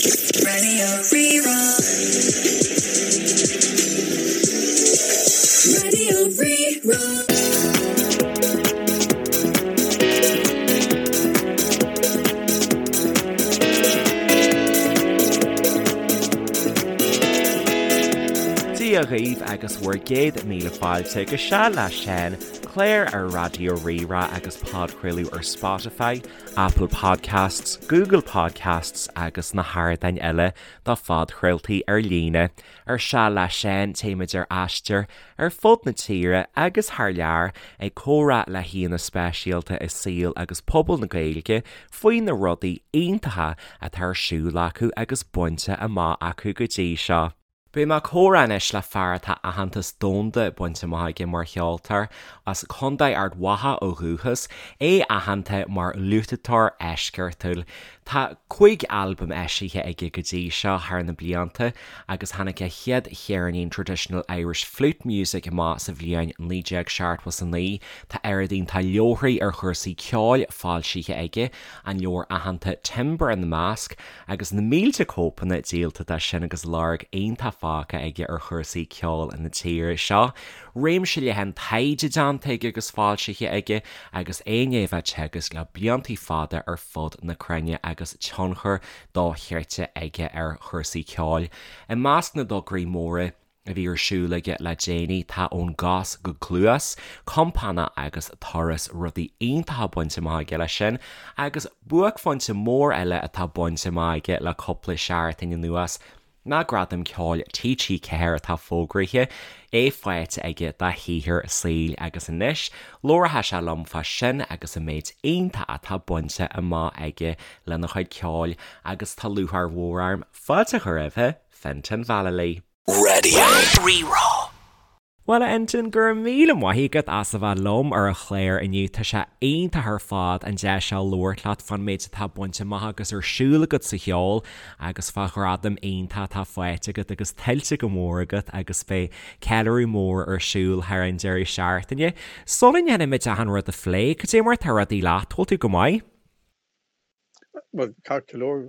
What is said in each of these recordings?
Radio Rí-Rá. Radio Rí-Rá. Dia dhaoibh agus bhur gcéad míle fáilte go Seal le Seán, clár ar Raidió Rí-Rá agus podchraoladh ar Spotify, Apple Podcasts, Google Podcasts agus na hardáin eile do phodchraoltaí ar líne. Ar Seal le Seán téimid ar aistear ar fud na tíre agus thar lear ag comhrá le haíonna speisialta i saol agus pobal na Gaeilge faoi na rudaí iontacha atá ar siúl acu agus bainte amach acu go dtí seo. Beidh mé ag comhrá anois le fear atá aitheantas domhanda bainte amach aige mar cheoltóir, as Contae Ard Mhacha ó dhúchas, é aitheanta mar fhliúiteoir eisceachtúil. Tá 5 albam eisithe aige go dtí seo thar na blianta agus tháinig a chéad cheirnín Traditional Irish Flute Music amach sa bhliain 1979. Tá oiread iontach leabharthaí ar chúrsaí ceoil foilsithe aige, an leabhar aitheanta Timbre ina measc, Agus na mílte cóipeanna díolta de sin agus lorg iontach fágtha aige ar chúrsaí ceoil na tíre seo. Réimse leathan taighde déanta aige agus foilsithe aige agus é i ndiaidh a bheith ag teagasc le bliantaí fada ar fud na cruinne agus tionchar dochreidte aige ar chúrsaí ceoil. I measc na dtograí móra a bhí ar siúl aige le déanaí tá Ón gCos go Cluas, Compánach agus Turas, rudaí iontacha bainte amach aige leis sin, agus buaicphointe mór eile atá bainte amach aige le cúpla seachtain anuas ná Gradam Ceoil TG4 atá fógraithe, é faighte aige dá shaothar saoil agus anois labharfaidh sé liom fá sin agus an méid iontach atá bainte amach aige lena chuid ceoil agus tá lúcháir mhór orm fáilte a chur roimhe, Fintan Vallely. Radio Rí-Rá. Bhuel, a Fhintan, go raibh míle maith agat as a bheith liom ar an chlár inniu. Tá sé iontach ar fad an deis seo labhairt leat fán méid atá bainte amach agus ar siúl agat sa cheol agus fá ghradam iontach atá faighte agat agus tuillte go mór agat agus beidh ceiliúradh mór ar siúl thar an deireadh seachtaine. Sula ndéanaimid achan rud a phlé, cad é mar atá rudaí leat? Bhfuil tú go maith? Bhuel, ceart go leor,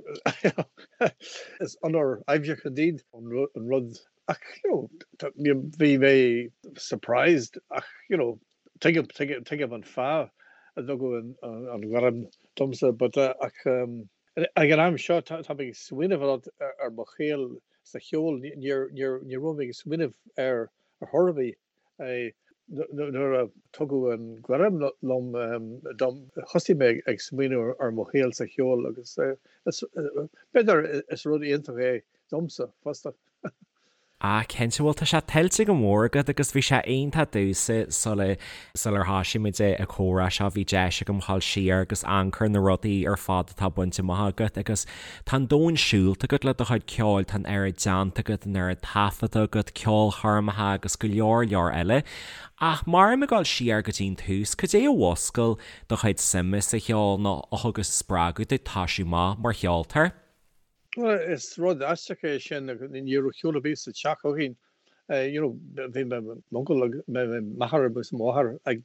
is onóir aibhseach indeed an rud ach you know bhí mé surprised ach you know tuigim, tuigim, tuigim an fáth a dtugadh an ghairm domsa but ach ag an am seo tá mé ag smaoineamh a lot ar mo shaol sa cheol, níor, níor, ní raibh mé ag smaoineamh air ar chor ar bith. Nuair a tugadh an ghairm liom dom, thosaigh mé ag smaoineamh ar mo shaol sa cheol agus b'fhéidir is rud iontach é domsa fosta. Ah cinnte, bhuel tá sé tuillte go mór agat agus bhí sé iontach domhsa sula sular thoisigh muid an comhrá seo bhí deis agam dhul siar agus amharc ar na rudaí ar fad atá bainte amach agat agus Tá an domhan siúlta agat le do chuid ceoil, tá an oiread déanta agat, an oiread taifeadta agat, ceolchoirmeacha agus go leor leor eile. Ach má táim ag dul siar go dtí an tús, cad é a mhúscail do chuid suime sa cheol nó a thug an spreagadh duit toisiú amach mar cheoltóir? Bhuel, is rud aisteach é sin, ní raibh ceol ar bith sa teach againn. You know, bhí m'uncail agus m'athair agus mo mháthair ag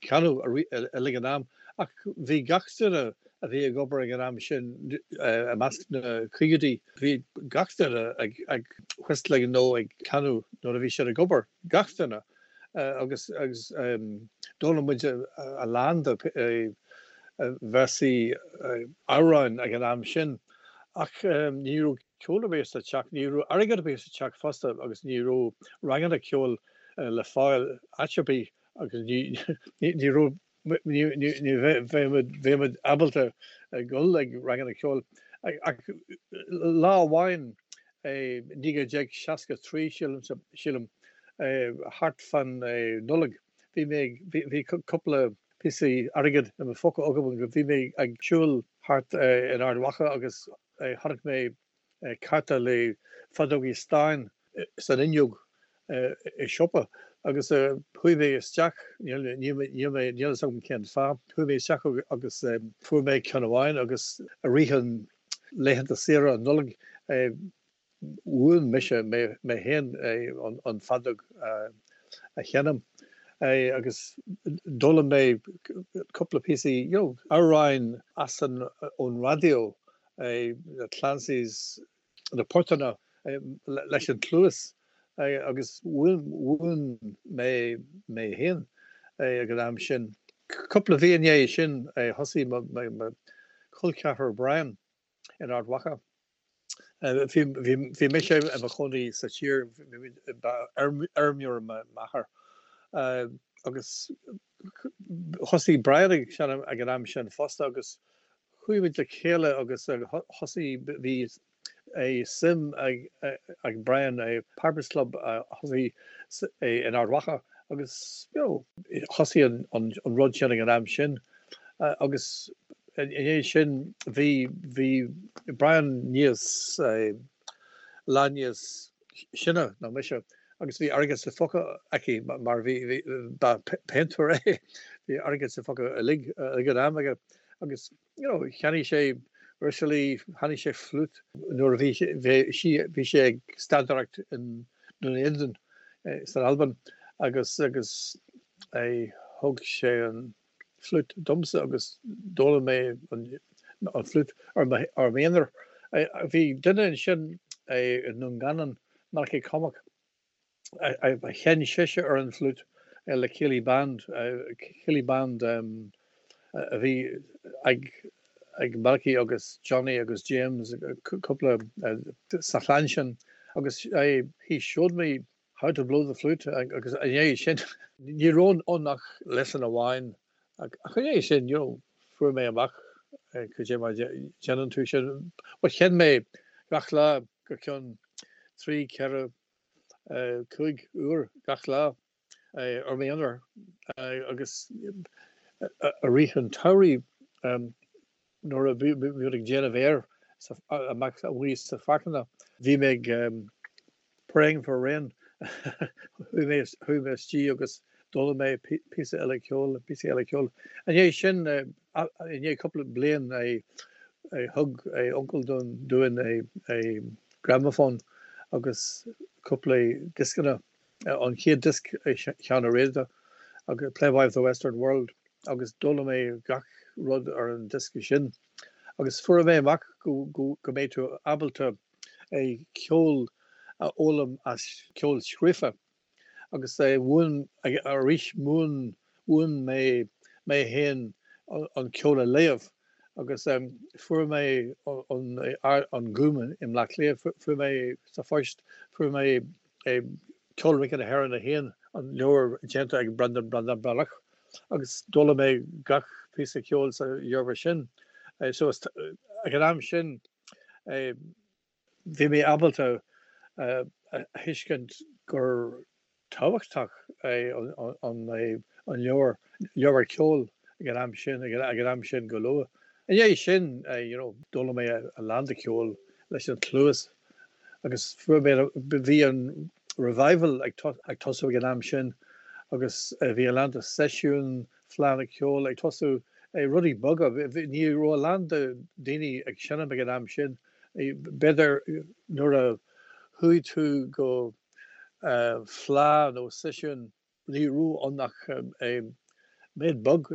canadh uilig an am ach bhí gach duine a bhí ag obair ag an am sin i measc na caogaidí, bhí gach duine ag whistling nó ag canadh nuair a bhí siad ag obair, gach duine agus agus d'fhoghlaim muid a lán de véarsaí amhráin ag an am sin ach ní raibh ceol ar bith sa teach, ní raibh airgead ar bith sa teach fosta agus ní raibh ranganna ceoil le fáil áit ar bith agus ní raibh, ní bheadh muid ábalta dul ag ranganna ceoil. Ach lá amháin i 1963 sílim, thart fan Nollaig, bhí mé ag, bhí cúpla píosaí airgid i mo phóca agam agus bhí mé ag siúl thart in Ard Mhacha agus Chonaic mé cárta le feadógaí stáin san fhuinneog i siopa agus chuaigh mé isteach, níl mé, níl fhios agam cén fáth, chuaigh mé isteach agus fuair mé ceann amháin agus i rith an laethanta saoire an Nollaig mhúin mise mé féin an feadóg a sheinm agus d'fhoghlaim mé cúpla píosaí, you know, amhráin as an, ón raidió. na Clancys, na portanna leis an chluas agus mhúin mé mé féin ag an am sin. Cúpla mhí i ndiaidh sin thosaigh mo chol ceathrar Brian in Ard Mhacha. Bhí mise i mo chónaí sa tír, ba fheirmeoir m'athair agus thosaigh Brian ag seinm ag an am sin fosta agus chuaigh muid le chéile agus thosaigh, bhí suim ag Brian i Pipers Club a thosaigh in Ard Mhacha agus you know thosaigh an rud sin ag an am sin agus i ndiaidh sin bhí, bhí Brian níos, lá níos sine ná mise agus bhí airgead sa phóca aici mar bhí, bhí, ba péintéir é, bhí airgead sa phóca uilig ag an am aige agus you know cheannaigh sé uirlisí, cheannaigh sé fliút nuair a bhí sé, bhí, bhí sé ag staidiúireacht in Dún Éideann san Albain agus, agus thug sé an fliút domsa agus d'fhoghlaim mé an fliút ar m'aonar. Bhí duine ansin i nDún Geanainn, Malachy Cormack, a sheinn sise ar an bhfliút le Céilí Band, Céilí Band a bhí ag ag Malachy agus Johnny agus James, cúpla sa chlann sin agus he showed me How to blow the flute agus i ndiaidh sin ní raibh ann ach lesson amháin ach i ndiaidh sin you know fuair mé amach cad é mar a dhéanann tú sin. But sheinn mé gach lá go ceann 3, 4, 5 uair gach lá ar m'aonar agus i rith an tsamhraidh Nuair a bhí muid ag déanamh féir amach amuigh sa pháirceanna, bhí mé ag praying for rain. Chuaigh mé chuaigh mé istigh agus d'fhoghlaim mé píosa eile ceoil, píosa eile ceoil. I ndiaidh sin, i ndiaidh cúpla bliain, thug uncail dúinn gramophone agus cúpla dioscanna. An chéad diosc Seán Ó Riada agus Playboy of the Western World agus d'fhoghlaim mé gach rud ar an diosca sin agus fuair mé amach go go mbeidh tú ábalta ceol a fhoghlaim as ceol scríofa agus mhúin arís mhúin mhúin mé mé féin an ceol a léamh agus fuair mé an Gúm i mBleá Cliath fuair mé sa phost fuair mé Ceol Rince na hÉireann 1, an leabhar déanta ag Breandán Breandán Breathnach, agus d'fhoghlaim mé gach píosa ceoil sa leabhar sin. So ag an am sin bhí mé ábalta a thuiscint gur tábhachtach é an leabhar, leabhar ceoil ag an am sin, ag an am sin go luath. I ndiaidh sin, you know, d'fhoghlaim mé a lán de cheol leis an chluas agus fuair mé, bhí an revival ag tosú ag an am sin agus bhí a lán de seisiúin, fleánna ceoil ag tosú, rudaí beaga, ní raibh a lán de daoine ag seinm ag an am sin, b'fhéidir nuair a chuaigh tú go fleá nó seisiún Ní raibh ann ach méid beag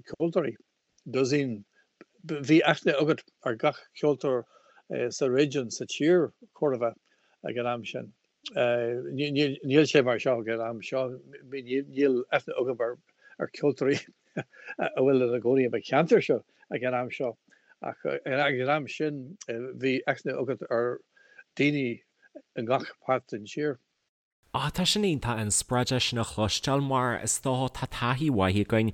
ceoltóirí, dosaen. Bhí aithne agat ar gach ceoltóir sa réigiún, sa tír, chóir a bheith, ag an am sin. Níl sé mar seo ag an am seo. Níl aithne agam ar cheoltóirí a bhfuil ina gcónaí i mo cheantar seo ag an am seo ach ag an am sin bhí aithne agat ar daoine i ngach páirt den tír. Á, tá sin iontach an spreagadh sin a chloisteáil mar is dócha tá taithí mhaith againn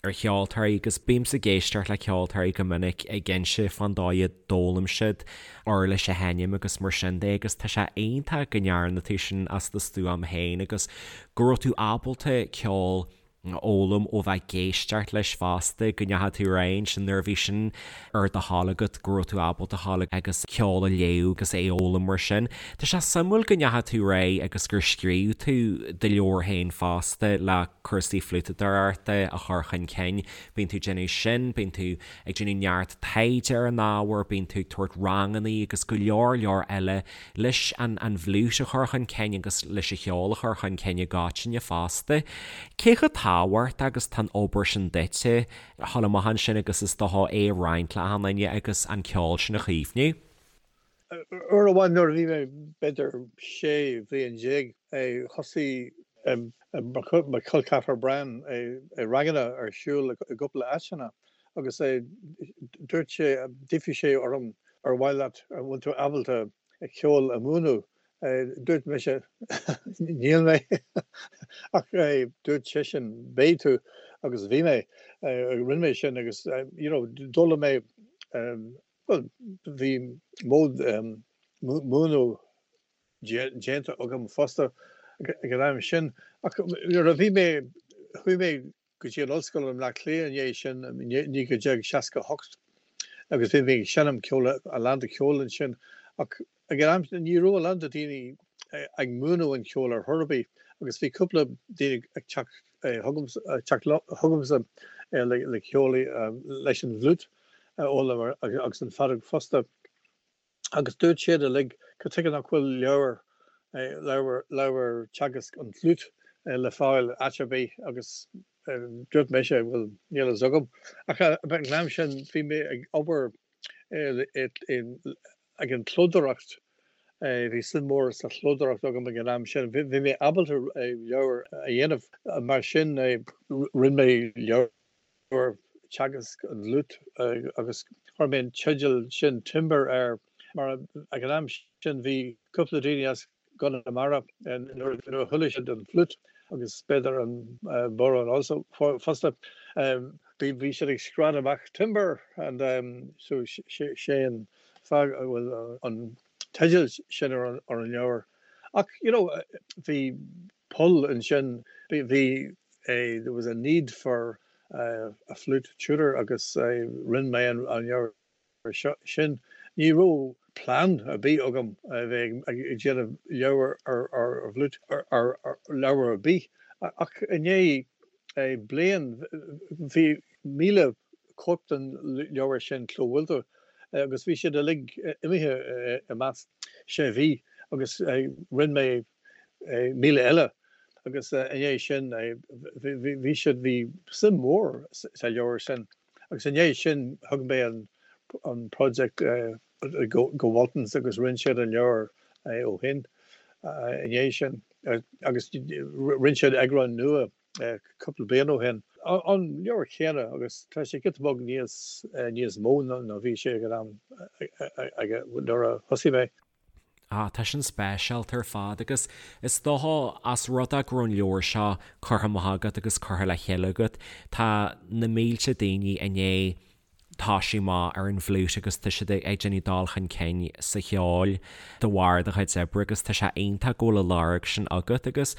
ar cheoltóirí agus bímse ag éisteacht le ceoltóirí go minic ag inse fán dóigh a d'fhoghlaim siad uirlis a sheinm agus mar sin de agus tá sé iontach go ndearna tú sin as do stuaim féin agus go raibh tú ábalta ceol a fhoghlaim ó bheith ag éisteacht leis fosta, go ndeachaigh tú ar aghaidh ansin nuair a bhí sin ar do thoil agat go raibh tú ábalta a ghabháil agus ceol a léamh agus é a fhoghlaim mar sin. Tá sé suimiúil go ndeachaigh tú ar aghaidh agus gur scríobh tú do leabhar féin fosta le cúrsaí fliútadóireachta a chur chun cinn. Bíonn tú ag déanamh sin, bíonn tú ag déanamh neart taighde ar an ábhar, bíonn tú ag tabhairt rangannaí agus go leor leor eile leis an an bhfliúit a chur chun cinn agus leis an cheol a chur chun cinn i gcoitinne fosta. Cé chomh. tábhacht agus tá an obair sin duitse a dhul amach ansin agus is dócha é a roinnt le achan duine agus an ceol sin a chaomhnú. Uair amháin nuair a bhí mé b'fhéidir 16 bhliain, thosaigh mo chol ceathrar Brian ranganna ar siúl i gcúpla áiteanna agus dúirt sé, d'fhiafraigh sé orm ar mhaith leat, an bhfuil tú ábalta ceol a mhúineadh? Dúirt mise níl mé ach dúirt seisean beidh tú agus bhí mé, rinne mé sin agus you know d'fhoghlaim mé Bhuel, bhí mód múineadh déanta agam fosta ag an am sin ach nuair a bhí mé, chuaigh mé go dtí an ollscoil i mBleá Cliath i ndiaidh sin, i 1968 agus bhí mé ag seinm ceoil, a lán de cheol ansin ach ag an am sin ní raibh a lán de daoine ag múineadh an cheoil ar chor ar bith agus bhí cúpla daoine ag teacht chugamsa le ceol leis an bhfliúit a fhoghlaim agus an feadóg fosta agus dúirt siad uilig cad tuige nach bhfuil leabhar, leabhar, leabhar teagasc an fhliúit le fáil áit ar bith agus dúirt mise bhuel níl fhios agam ach ag an am sin bhí mé ag obair ag an chlódóireacht, bhí suim mór sa chlódóireacht agam ag an am sin, bhí mé ábalta leabhar a dhéanamh mar sin rinne mé leabhar. teagasc an fhliúit agus chuir mé an teideal sin Timber air mar ag an am sin bhí cúpla daoine as gConamara nuair a chuala siad an fliúit agus b'fhéidir an bodhrán also fosta bhí siad ag scread amach Timber and so sé an fáth a bhfuil an teideal sin ar an leabhar. Ach you know bhí poll ansin bhí there was a need for a flute tutor agus rinne mé an leabhar sin. Ní raibh plean ar bith agam a bheith ag déanamh leabhar ar fhliúit, ar leabhar ar bith ach i ndiaidh bliain bhí 1,000 cóip den leabhar sin clóbhuailte agus bhí siad uilig imithe i measc sé mhí agus rinne mé 1,000 eile agus i ndiaidh sin bhí siad, bhí suim mhór sa leabhar sin agus i ndiaidh sin thug mé an project go Waltons agus rinne siad an leabhar ó shin i ndiaidh sin agus rinne siad eagrán nua cúpla bliain ó shin. An leabhar céanna agus tá sé giota beag níos níos mó ná bhí sé ag an am nuair a thosaigh mé. Ah, tá sin speisialta ar fad agus is dócha as rud é go raibh an leabhar seo curtha amach agat agus curtha le chéile agat, tá na mílte daoine i ndiaidh toisiú amach ar an bhfliúit agus tá siad ag déanamh dul chun cinn sa cheol de bharr do chuid oibre agus tá sé iontach go bhfuil an lorg sin agat agus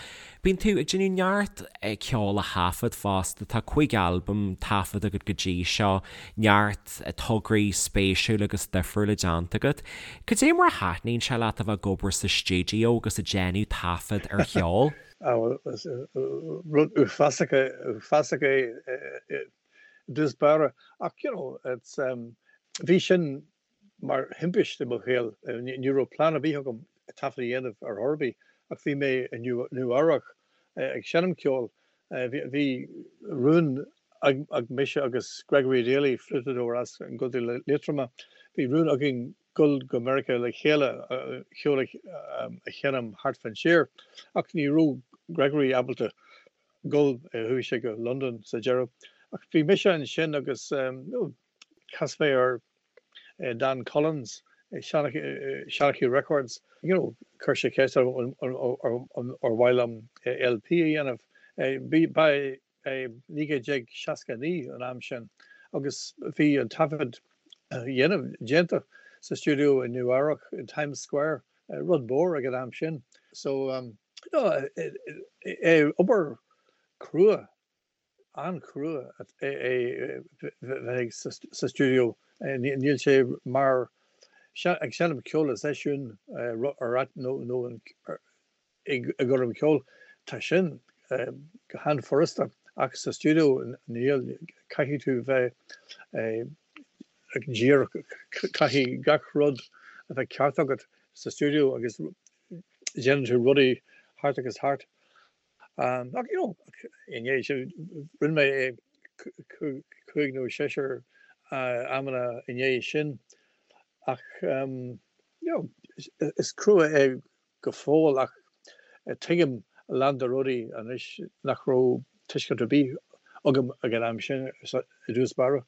bíonn tú ag déanamh neart ceol a thaifead fosta, tá 5 albam taifeadta agat go dtí seo, neart tograí spéisiúla agus difriúla déanta agat. Cad é mar a thaitníonn sé leat a bheith ag obair sa stiúideo agus ag déanamh taifead ar cheol? Rud uafásach uafásach é i dtús báire ach you know it's bhí sin mar thimpiste i mo shaol. Ní raibh plean ar bith agam taifead a dhéanamh ar chor ar bith ach bhí mé i Nua Eabhrac ag seinm ceoil. Bhí rún ag mise agus Gregory Daly, fliútadóir as an gContae Liatroma, bhí rún againn dul go Meiriceá le chéile ceol a sheinm thart fán tír ach ní raibh Gregory ábalta dul, chuaigh sé go Londain sa deireadh. Ach bhí mise ansin agus chas mé ar Dan Collins, Shanachie Records, you know, chuir sé ceist orm ar mhaith liom LP a dhéanamh. Ba é 1969 an am sin agus bhí an taifead dhéanamh déanta sa stiúideo i Nua Eabhrac, in Times Square, rud mór ag an am sin. So, you know, obair crua an-chrua é bheith sa stiúideo. Níl sé mar ag seinm ceoil i seisiún nó i gcoirm cheoil. Tá sin go han-fhurasta ach sa stiúideo níl, caithfidh tú bheith díreach, caithfidh gach rud a bheith ceart agat sa stiúideo agus déanann tú rudaí thart agus thart. Ach you know, i ndiaidh sin, rinne mé é cúig nó seisear amanna i ndiaidh sin ach you know, is crua é go fóill ach tuigim a lán de rudaí anois nach raibh tuiscint ar bith agam ag an am sin i dtús báire.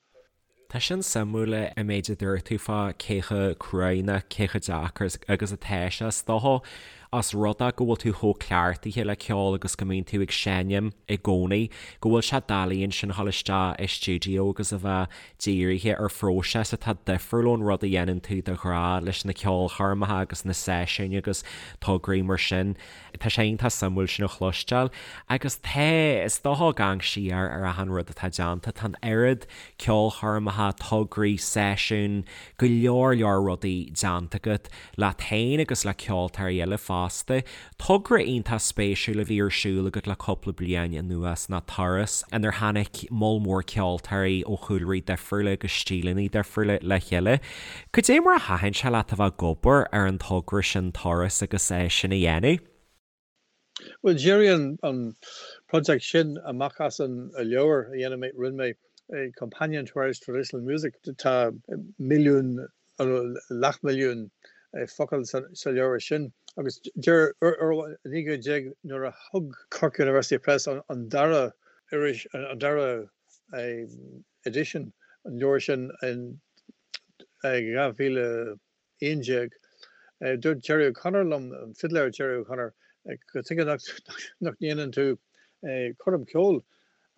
Tá sin suimiúil an méid a dúirt tú fá cé chomh cruaidh nó cé chomh deacair agus atá sé. Is dócha os rud é go bhfuil tú chomh cleachtaithe le ceol agus go mbíonn tú ag seinm i gcónaí, go bhfuil sé doiligh ansin a dhul isteach i stiúideo agus a bheith dírithe ar phróiseas atá difriúil ón rud a dhéanann tú de ghnáth leis na ceolchoirmeacha agus na seisiúin agus tograí mar sin. Tá sé iontach suimiúil sin a chloisteáil. Agus tá, is dócha ag amharc siar ar achan rud atá déanta, tá an oiread ceolchoirmeacha, tograí, seisiún, go leor leor rudaí déanta agat leat féin agus le ceoltóirí eile fosta. Togra iontach spéisiúil a bhí ar siúl agat le cúpla bliain anuas ná Turas, inar tháinig moll mór ceoltóirí ó chúlraí difriúla agus stíleanna difriúla le chéile. Cad é mar a thaitin sé leat a bheith ag obair ar an togra sin Turas agus é sin a dhéanamh? Bhuel, d'éirigh an project sin amach as an leabhar a dhéanamh mé, rinne mé Companion to Irish Traditional Music. Tá milliún, leathmhilliún focal sa leabhar sin agus deir, 19 nuair a thug Cork University Press an dara iris, an dara edition an leabhar sin in 2011, dúirt Gerry O'Connor liom, an fidléir Gerry O'Connor, cad chuige nach ndéanann tú coirm ceoil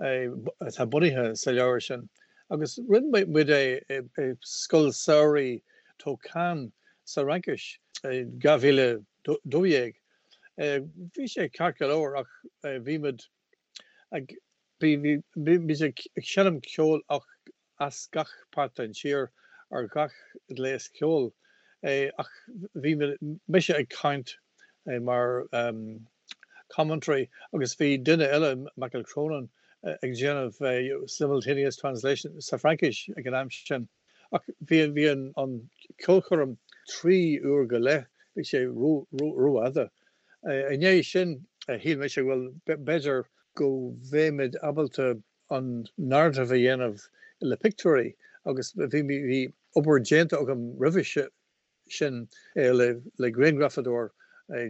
atá bunaithe sa leabhar sin. Agus rinne muid é i Scoil Samhraidh Tulcán sa Fhraincis i 2012. Bhí sé ceart go leor ach bhí muid ag bhí muid ag seinm ceoil ach as gach páirt den tír ar gach gléas ceoil ach bhí mise ag caint mar commentary agus bhí duine eile, Michael Cronin, ag déanamh simultaneous translation sa Fraincis ag an am sin. Ach bhí bhí an ceolchoirm 3 uair go leith, bhí sé rófhada. I ndiaidh sin shíl mise bhuel b'fhéidir go mbeimid ábalta an narrative a dhéanamh le pictiúirí agus bhí bhí obair déanta agam roimhe sin le le grianghrafadóir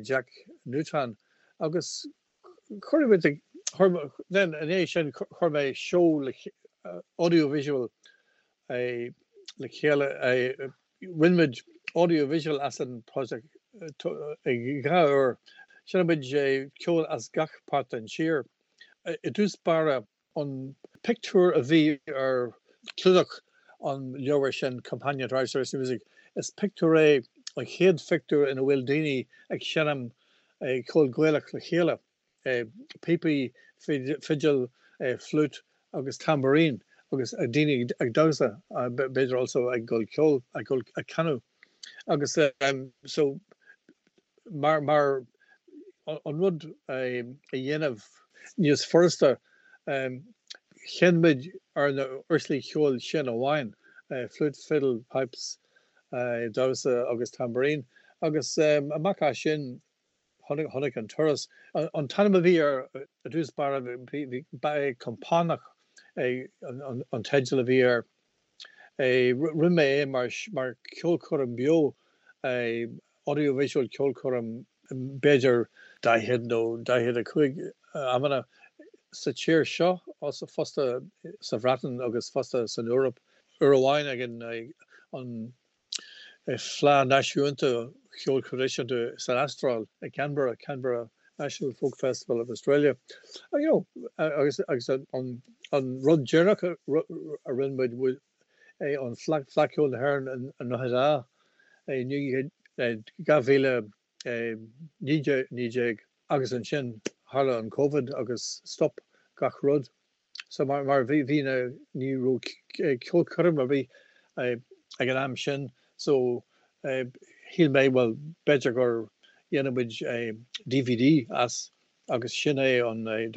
Jack Newton agus chuir muid chuir then i ndiaidh sin chuir mé seó le audio visual le chéile rinne muid audio visual as an project dhá uair sheinn muid ceol as gach páirt den tír. I dtús báire, an pictiúr a bhí ar chlúdach an leabhair sin, Companion to Irish Traditional Music, is pictiúr é, an chéad phictiúr ina bhfuil daoine ag seinm ceol Gaelach le chéile, píopaí, fidil, fliúit agus tambourine agus daoine ag damhsa, b'fhéidir also ag gol ceol, ag gol, ag canadh. Agus so mar mar an rud a dhéanamh níos furasta, sheinn muid ar na uirlisí ceoil sin amháin, flute, fiddle, pipes, damhsa agus tambourine. Agus amach as sin tháinig an turas. An t-ainm a bhí air i dtús báire, ba é Compánach an teideal a bhí air. Rinne mé é mar mar ceolchoirm beo, audio visual ceolchoirm b'fhéidir 40 nó 45 amanna sa tír seo fosta sa Bhreatain agus fosta san Eoraip. Uair amháin ag an Fleadh Náisiúnta Cheoil Thraidisiúnta san Astráil i Canberra, Canberra National Folk Festival of Australia. You know, agus agus an an rud deireanach a rinne muid é an Fleadh Fleadh Cheoil na hÉireann i nDroichead Átha i 2019 agus ansin tharla an Covid agus stop gach rud. So mar mar bhí bhí na ní raibh ceolchoirm ar bith ag an am sin so shíl mé bhuel b'fhéidir gur dhéanfaidh muid DVD as agus sin é an an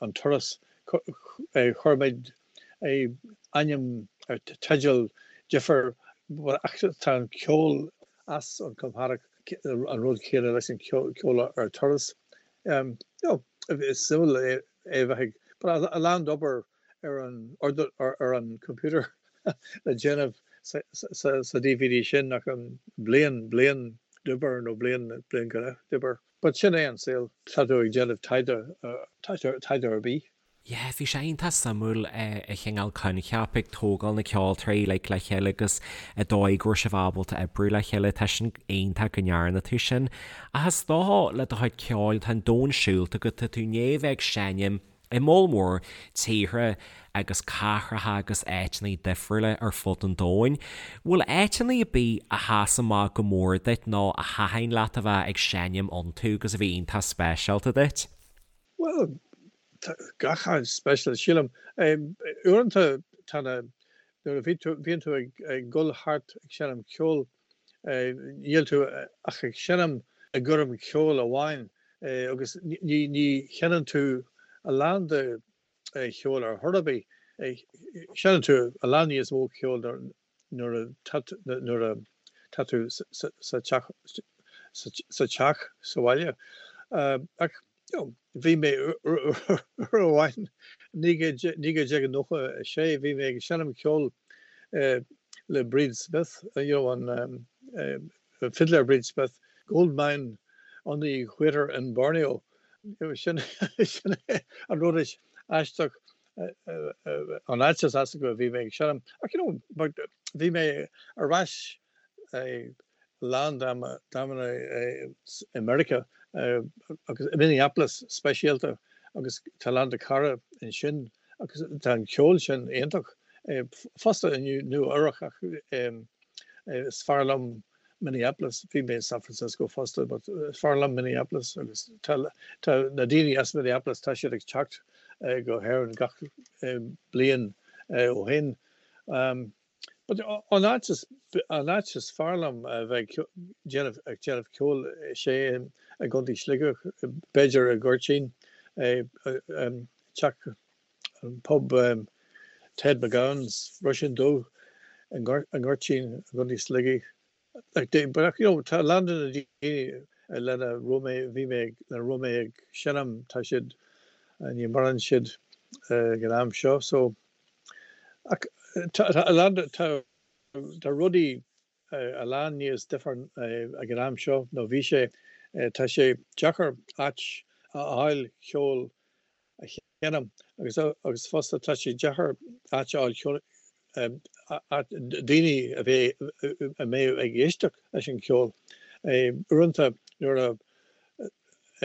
an turas chuir muid ainm teideal difir ach tá an ceol as an Compánach an rud céanna leis an ceol ar turas. You know, is suimiúil é a bheith ag, but a lán d'obair ar an ar an computer le déanamh sa DVD sin ach an bliain, bliain d'obair nó bliain, bliain go leith d'obair. But sin é an saol, tá tú ag déanamh taighde, taighde ar bith. Yeah, bhí sé iontach suimiúil an chineál coincheap ag tógáil na ceoltóirí like le chéile agus an dóigh go raibh sibh ábalta oibriú le chéile, tá sin iontach go ndearna tú sin. Ach is dócha le do chuid ceoil, tá an domhan siúlta agat, tá tú i ndiaidh a bheith ag seinm i moll mór tíortha agus cathracha agus áiteanna difriúla ar fud an domhain. Bhfuil áiteanna ar bith a sheas amach go mór duit nó a thaitin leat a bheith ag seinm iontu agus a bhí iontach speisialta duit? Bhuel, tá gach áit speisialta, sílim. Uaireanta tá na, nuair a bhí tú, bhíonn tú ag, ag dul thart ag seinm ceoil, níl tú ach ag seinm i gcoirm cheoil amháin agus ní, ní sheinneann tú a lán de cheol ar chor ar bith. Seinneann tú a lán níos mó ceoil nuair a nuair a tá tú sa teach sa teach sa bhaile. Ach you know bhí mé uair amháin 1996 bhí mé ag seinm ceoil le Bríd Smith, you know an fidléir Bríd Smith, Goldmine on the Equator in Borneo. Sin sin an rud is aisteach an áit is aisteach a bhí mé ag seinm. Ach you know but bhí mé ar ais a lán d'amanna i Meiriceá agus i Minneapolis speisialta agus tá a lán de cara ansin agus tá an ceol sin iontach fosta i Nua Eabhrac ach is fearr liom Minneapolis, bhí mé i San Francisco fosta but is fearr liom Minneapolis agus tá tá na daoine as Minneapolis tá siad ag teacht go hÉirinn gach bliain ó shin. But an áit is an áit is fearr liom a bheith ag déanamh ag déanamh ceoil is é i gContae Shligigh, b'fhéidir i nGoirtín, teach an pub Ted McGowan's, Roisín Dubh i nGoirtín i gContae Shligigh. But you know tá a lán de na daoine lena raibh mé bhí mé lena raibh mé ag seinm tá siad ní maireann siad ag an am seo so Ach tá a lán, tá rudaí a lán níos difear ag an am seo nó bhí sé. Tá sé deacair áit a fháil ceol a sheinm agus agus fosta tá sé deacair áit a fháil ceol daoine a bheidh a mbeidh ag éisteacht leis an cheol. Uaireanta nuair a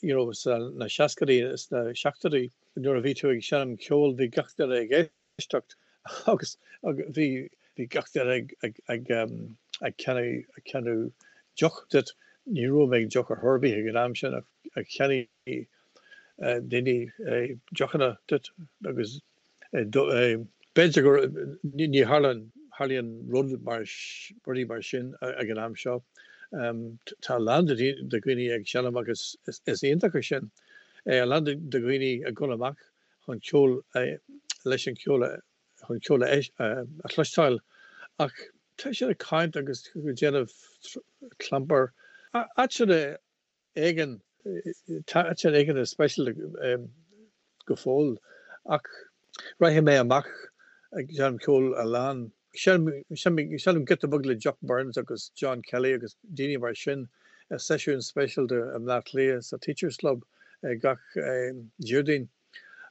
you know sna seascaidí is na seachtóidí Nuair a bhí tú ag seinm ceoil bhí gach duine ag éisteacht agus bhí bhí gach duine ag ag ag ag ceannach ag ceannach deoch duit. Ní raibh mé ag deoch ar chor ar bith ag an am sin ach ach cheannaigh daoine deochanna duit agus b'fhéidir gur ní tharlaíonn tharlaíonn rud mar rudaí mar sin ag an am seo. Tá a lán de dhaoine ag seinm agus is iontach é sin. A lán de dhaoine ag dul amach chun ceol leis an cheol chun ceol a chloisteáil ach tá siad ag caint agus ag déanamh clampar. Áiteanna éigin, tá áiteanna éigin speisialta go fóill ach rachaidh mé amach ag seinm ceoil a lán. Seinnim giota beag le Jock Burns agus John Kelly agus daoine mar sin i seisiún speisialta i mBleá Cliath sa Teachers Club gach Déardaoin.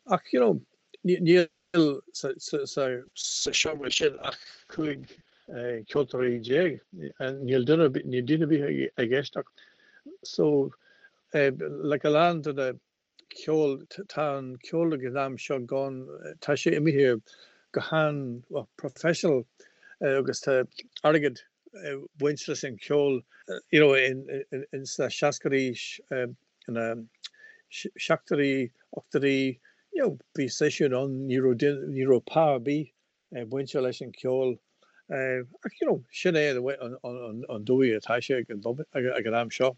Ach you know níl sa seomra sin ach 15 ceoltóirí. Níl duine níl duine ar bith ag éisteacht. So like a lán de na ceol, tá an ceol ag an am seo gan, tá sé imithe go han, well, professional agus tá airgead ag baint leis an cheol, you know, in sna seascaidí, ina seachtóidí, ochtóidí, you know, bhí seisiún ann, ní raibh, ní raibh pá ar bith bainte leis an cheol. Ach you know, sin é an dóigh atá sé ag an am seo.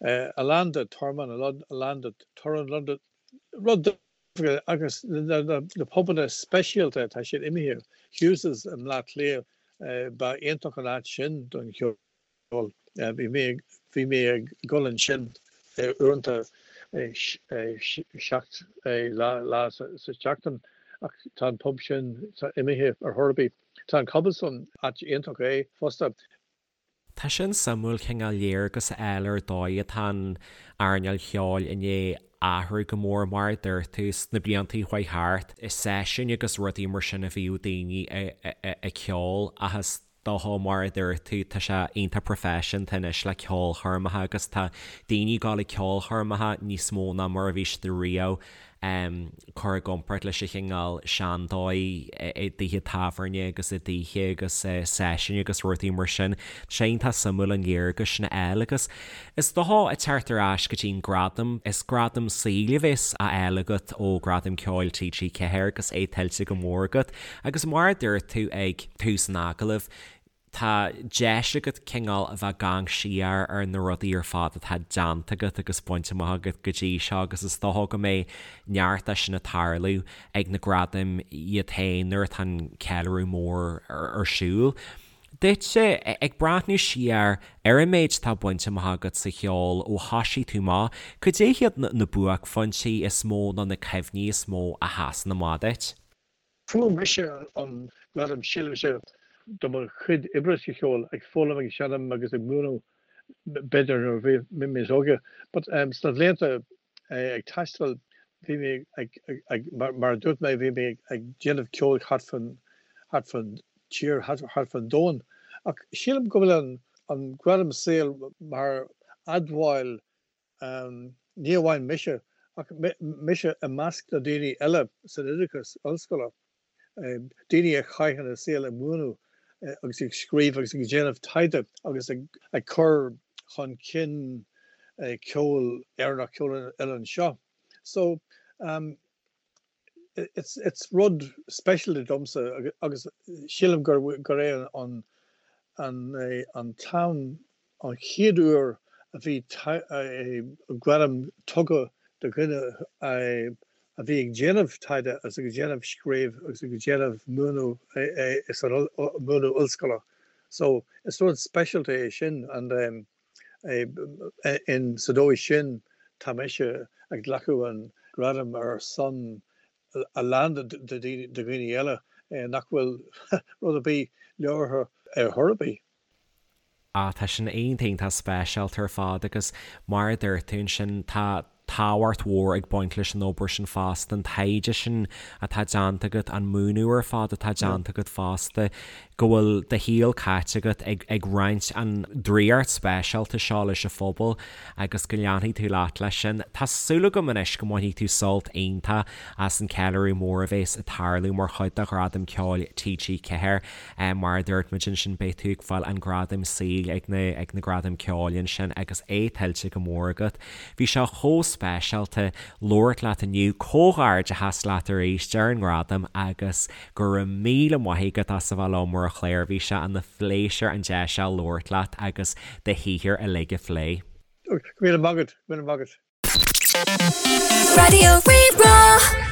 A lán de tormán, a lán de torann, a lán de rud agus na pubanna speisialta tá siad imithe. Hughes's i mBleá Cliath, ba iontach an áit sin don cheol. Bhí mé ag dul ansin. uaireanta 7 lá sa tseachtain ach tá an pub sin imithe ar chor ar bith. Tá an Cobblestone, áit iontach é fosta. Tá sin suimiúil cineál léargas a fháil ar dóigh atá an earnáil cheoil i ndiaidh athrú go mór mar a dúirt tú sna blianta a chuaigh thart. I seisiúin agus rudaí mar sin a bhíodh daoine ag ceol ach is dócha mar a dúirt tú tá sé iontach proifisiúnta anois le ceolchoirmeacha agus tá daoine ag dul ag ceolchoirmeacha níos mó ná mar a bhí siad riamh cur i gcomparáid leis an chineál seandóigh i dtithe tábhairne agus i dtithe agus seisiúin agus rudaí mar sin. Tá sé iontach suimiúil an léargas sin a fháil agus is dócha ag teacht ar ais go dtí an gradam, is gradam saoil a bheas á fháil agat ó Ghradaim Ceoil TG4 agus é tuillte go mór agat agus mar a dúirt tú ag tús an agallaimh, tá deis agat cineál a bheith ag amharc siar ar na rudaí ar fad atá déanta agat agus bainte amach agat go dtí seo agus is dócha go mbeidh neart de sin ag tarlú ag na gradaim iad féin nuair atá an ceiliúradh mór ar siúl. Duitse, ag breathnú siar ar an méid atá bainte amach agat sa cheol ó thoisigh tú amach, cad é hiad na buaicphointí is mó nó na cuimhní is mó a sheasann amach duit? Fuair mise an gradam sílimse do mo chuid oibre sa cheol, ag foghlaim, ag seinm agus ag múineadh b'fhéidir nuair a bhí mé níos óige. But sna bhlianta ag taisteal bhí mé ag, ag, mar a dúirt mé, bhí mé ag déanamh ceoil thart fán, thart fán tír, thart fán domhan. Ach sílim go bhfuil an, an gradam saoil mar admháil Ní amháin mise, ach mise i measc na daoine eile san oideachas ollscoile, daoine a chaitheann a saol ag múineadh agus ag scríobh agus ag déanamh taighde agus ag cur chun cinn ceol Éireannach, ceol an oileáin seo. So, it's rud speisialta domsa agus sílim gur gur é an an an t-am an chéad uair a bhí gradam tugtha do dhuine a bhí ag déanamh taighde agus ag déanamh scríobh agus ag déanamh múineadh san múineadh ollscoile. So is rud speisialta é sin and In sa dóigh sin, tá mise ag glacadh an gradam ar son a lán de dhaoine eile nach bhfuil rud ar bith leabhartha ar chor ar bith. Ah, tá sin iontach iontach speisialta ar fad agus mar a dúirt tú ansin, tá tábhacht mhór ag baint leis an obair sin fosta, an taighde sin atá déanta agat, an múineadh ar fad atá déanta agat fosta, go bhfuil do shaol caite agat ag ag roinnt an draíocht speisialta seo leis an phobal agus go leanfaidh tú leat leis sin. Tá súil agam anois go mbainfidh tú sult iontach as an ceiliúradh mór a bhéas ag tarlú mar chuid de Ghradaim Ceoil TG4. Mar a dúirt muid ansin, beidh tú ag fáil an gradam saoil ag na ag na Gradaim Ceoil ansin agus é tuillte go mór agat. Bhí sé chomh speisialta labhairt leat inniu. Comhghairdeachas leat arís ar an ngradam agus go raibh míle maith agat as a bheith liom ar an chlár. Bhí sé ina phléisiúr an deis seo labhairt leat agus do shaothar uilig a phlé. Go raibh míle maith agat. Go raibh míle maith agat. Raidió Rí-Rá.